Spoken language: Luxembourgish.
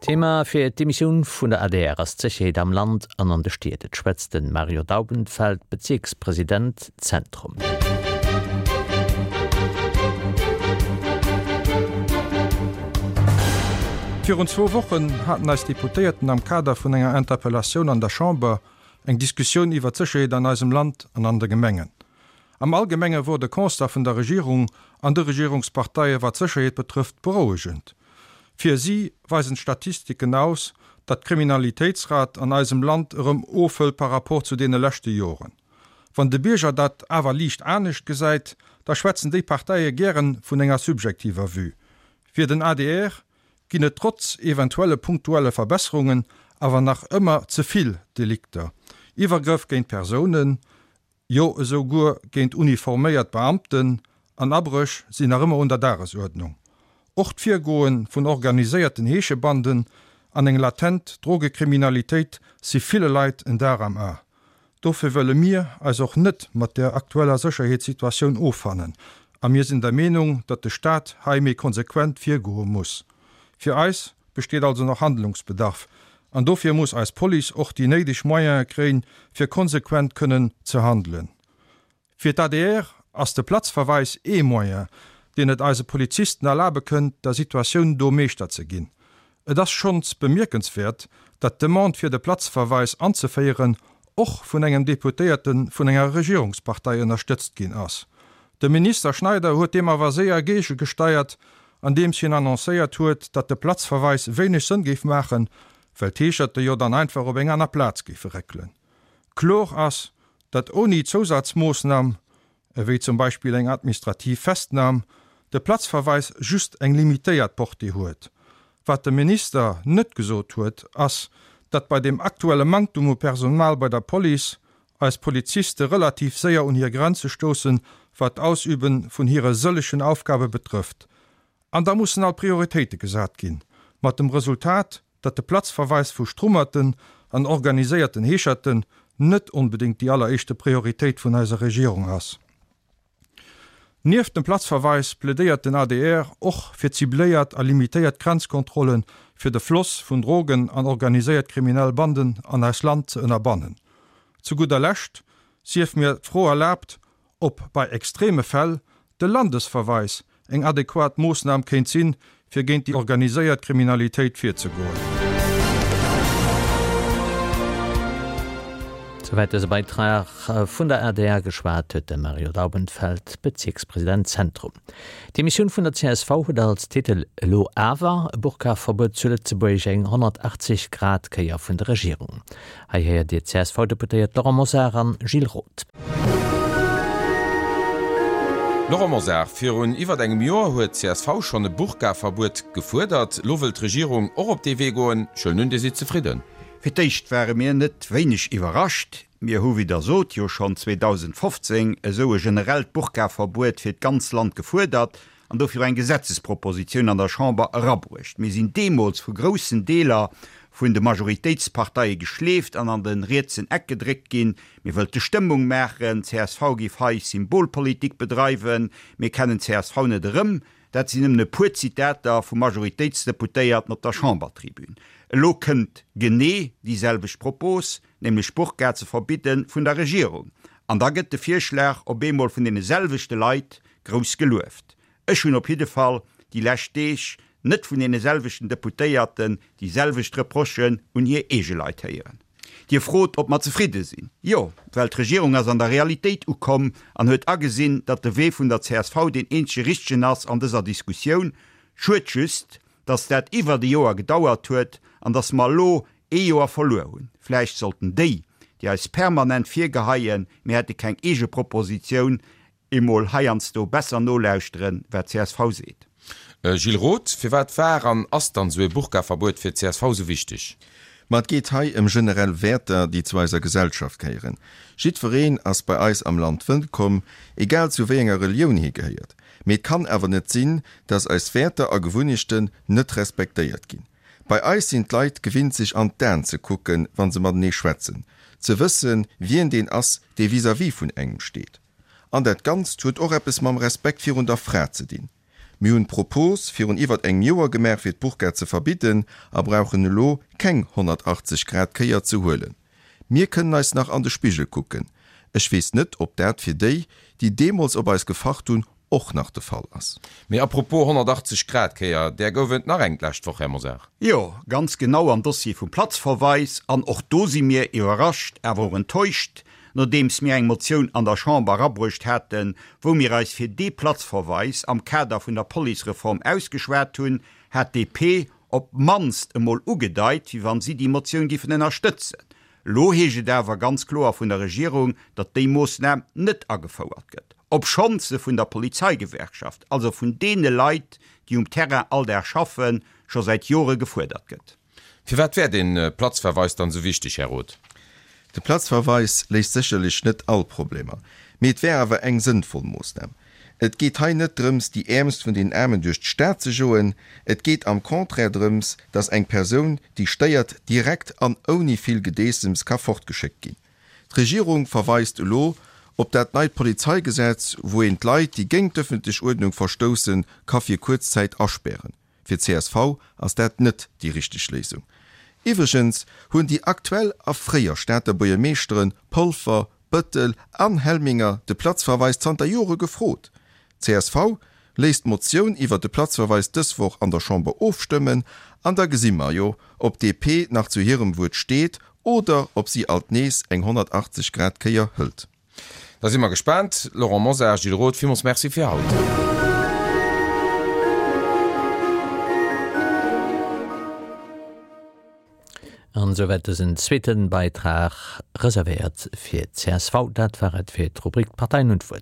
Thema fir d'Emissioun vun der adr ass d'Sécherheet am Land an an de Stied. Et schwätzt de Mario Daubenfeld, Bezierkspresident Zentrum. Virun zwou Wochen haten eis Deputéierten am Kader vun enger Interpellatioun an der Chamber eng Diskussioun iwwer d'Sécherheet an eisem Land an an de Gemengen. Am Allgemenge wor de Constat vun der Regierung an de Regierungsparteie wat d'Sécherheet betrëfft berouegend. Fir si weisen d'Statistiken aus, datt d'Kriminalitéitsrat an eisem Land erëm ofhëlt par rapport zu deene leschte Joren. Wann de Bierger dat awer liicht anescht gesäit, da schwätzen déi Parteie gären vun enger subjektiver Vue. Fir den adr ginn et trotz eventuelle punktuelle Verbesserungen awer nach ëmmer ze vill Delikter, Iwwergrëff géint Persounen, jo esou guer géint uniforméiert Beamten, an Abréch sinn nach ëmmer un der Dagesuerdnung. Och d'Virgoe vun organiséierten Heeschebanden an eng latent Drogekriminalitéit si ville Leit en Dar am A. Dofir wëlle mir eis och net mat der aktueller Sécherheetssituatioun offannen a mir sinn der Meenung, datt de Staat hei méi konsequent virgoe muss. Fir eis besteet also nach Handlungsbedarf an dofir muss eis Police och déi néideg Moyene kréien, fir konsequent kënnen ze handelen. Fir d'ADR ass de Platzverweis ee Moyen, deen et eise Polizisten erlabe kënnt, der Situatioun do Meeschter ze ginn. Et ass schonns bemierkenswäert, datt d'Demande fir de Platzverweis anzeféieren och vun engem Deputéierte vun enger Regierungspartei ënnerstëtzt ginn ass. De Minister Schneider huet deem awer séier géigegesteiert, andeems hien annoncéiert huet, datt de Platzverweis wéineg Sënn géif maachen, well d'Heescherte jo dann einfach op eng aner Plaz géife réckelen. Kloer ass, datt ouni Zousazmoossnam, ewéi zum Beispill eng administrativ Festnam, de Platzverweis just eng limitéiert Portée huet. Wat de Minister net gesot huet, ass, datt bei deem aktuelle Manktum u Personal bei der Police eis Poliziste relativ séier un hir Grenze stoussen, wat d'Ausübe vun hire sëllegen Aufgabe betrëfft. An da mussen alt Prioritéite gesat ginn, mat dem Resultat, datt de Platzverweis vu Strummerten an organiséierten Heescherten net onbedéngt déi alleréischte Prioritéit vun eiser Regierung ass. Nieft dem Platzverweis plädéiert den adr och fir cibléiert a limitéiert Grenzkontrollen, fir de Floss vun Drogen an organiséiert kriminell Banden an eist Land ze ënnerbannen. Zu gudder Lescht sief mir d'Fro erlaabt, ob bei extreme Fäll de Landesverweis eng adequat Moossnam kéint sinn, fir géint déi organiséiert Kriminalitéit virzegoen. Souwäit dëse Beitrag vun der adr. Geschwat huet de Mario Daubenfeld, Bezierkspresident Zentrum. D'Demissioun vun der csv huet als Titel Elo awer e Burka-Verbuet zu Lëtzebuerg, eng 180 Grad Kéier vun der Regierung. Hei héiert Dir d'CSV-Deputéiert Laurent Mosar an Gilles Roth. Laurent Mosar, Virun iwwert engem Joer huet d'CSV schonn e Burka-Verbuet gefuerdert. Lo wëll d'Regierung och op dee Wee goen. Ech huelen un, Dir sidd zefridden? Fir d'éischt ware mir net wéineg iwwerrascht. Mir hu, wéi Der sot, jo schonn 2015 esou e generellt Burka-Verbuet fir d'ganz Land gefuerdert an dofir och eng Gesetzespropositioun an der Chamber erabruecht. Mir sinn deemools vu groussen Deeler vun de Majoritéitsparteie geschleeft an an de rietsen Eck gedréckt ginn. Mir wëllte Stëmmung maachen, csv géif hei Symbolpolitik bedreiwen, mir kennen csv net erëm. Dat sinn nëmmen e puer Zitater vu Majoritéitsdeputéierten op der Chambertribün. Elo kënnt genee déi selwecht Propos, nämlech d'Burka ze verbidden, vun der Regierung. An da gëtt de Virschlag op eemol vun deene selwechte Leit grouss gelueft. Ech hunn op jidde Fall déi lescht Deeg net vun deene selwechten Deputéierten déi selwecht Reprochen un hir eege Leit héieren. Dir frot, ob mer zefridde sinn. Jo, well d'Regierung ass an der Realitéit ukomm an huet agesinn, datt de Wee vun der csv deen eenzege richtegen ass an dëser Diskussioun. Schued just, datt dat iwwert e Joer gedauert huet an datt mer elo ee Joer verluer hunn. Vläicht sollten déi, déi eis permanent virgeheien, mir hätte keng eege Propositioun, emol heiansdo besser nolauschteren, wat csv seet. Gilles Roth, Firwat war an ass dann esou ee Burka-Verbuet fir csv esou wichteg? Ma et geet hei ëm generell Wäerter, déi zu eiser Gesellschaft gehéieren. Jiddwereen ass bei eis am Land wëllkomm, egal zu wéi enger Relioun hie gehéiert. Mee et kann awer net sinn, dass eis Wäerter a Gewunnechten net respektéiert ginn. Bei eis sinn d'Leit gewinnt sech an d'Aen ze kucken, wa se matenee schwätzen, ze wëssen, wien deen ass, dee vis-à-vis vun engem steet. An dat Ganzt huet och eppes mam Respekt virun der Fra ze dinn. Mir hunn d'Propos virun iwwert engem Joer gemaach fir d'Burka ze verbidden a brauchen elo keng 180 Grad Kéier ze huelen. Mir kënnen eis nach an de Spigel kucken. Ech weess net, ob dat fir déi, déi deemools op eis gefacht hunn, och nach de Fall ass. Mee apropos 180 Grad Kéier, där gouf et nach eng d'lescht Woch, Här Mosar. Jo, ganz genau am Dossier vum Platzverweis. An och do si mir iwwerrascht, awer och enttäuscht, nodeems mir eng Motioun an der Chamber erabruecht haten, wou mir eis fir dee Platzverweis am Kader vun der Policereform ausgeschwat hunn, hat d'DP op d'mannst emol ugedeit, wéi wann si déi Motioun giffen ënnerstëtzen. Elo heescht et awer ganz kloer vun der Regierung, datt déi Moossnam net agefouert gëtt, obschonns se vun der Polizeigewerkschaft, also vun deene Leit, déi um Terrain all Dag schaffen, scho säit Jore gefuerdert gëtt. Firwat wär dee Platzverweis dann esou wichteg, Här Roth? De Platzverweis léist sécherlech net all Problemer, mee et wär awer eng sënnvoll Moossnam. Et geet hei net drëms, déi Äermst vun den Aarmen duerch d'Stad ze joen. Et geet am Contraire drëms, dass eng Persoun, déi stéiert, direkt an ouni vill Gedeessems ka fortgeschéckt ginn. D'Regierung verweist elo op dat neit Polizeigesetz, wou een d'Leit, déi géint d'ëffentlech Uerdnung verstoussen, ka fir kuerz Zäit aspären. Fir csv ass dat net déi richteg Léisung. Iwwregens hunn déi aktuell a fréier Stater Buergermeeschteren Polfer, Bëttel an Helminger de Platzverweis zanter Jore gefrot. Csv léisst d'Motioun iwwer de Platzverweis dës Woch an der Chamber ofstëmmen an da gesi mer jo, ob DP nach zu hirem Wuert steet oder ob si alt nees eng 180 Grad Kéier hëlt. Da si mer gespaant. Laurent Mosar, Gilles Roth, villmools Merci fir haut. An esouwäit dësen zweeten Beitrag, reservéiert fir csv. Dat war et fir d'Rubrik D'Parteien hunn d'Wuert.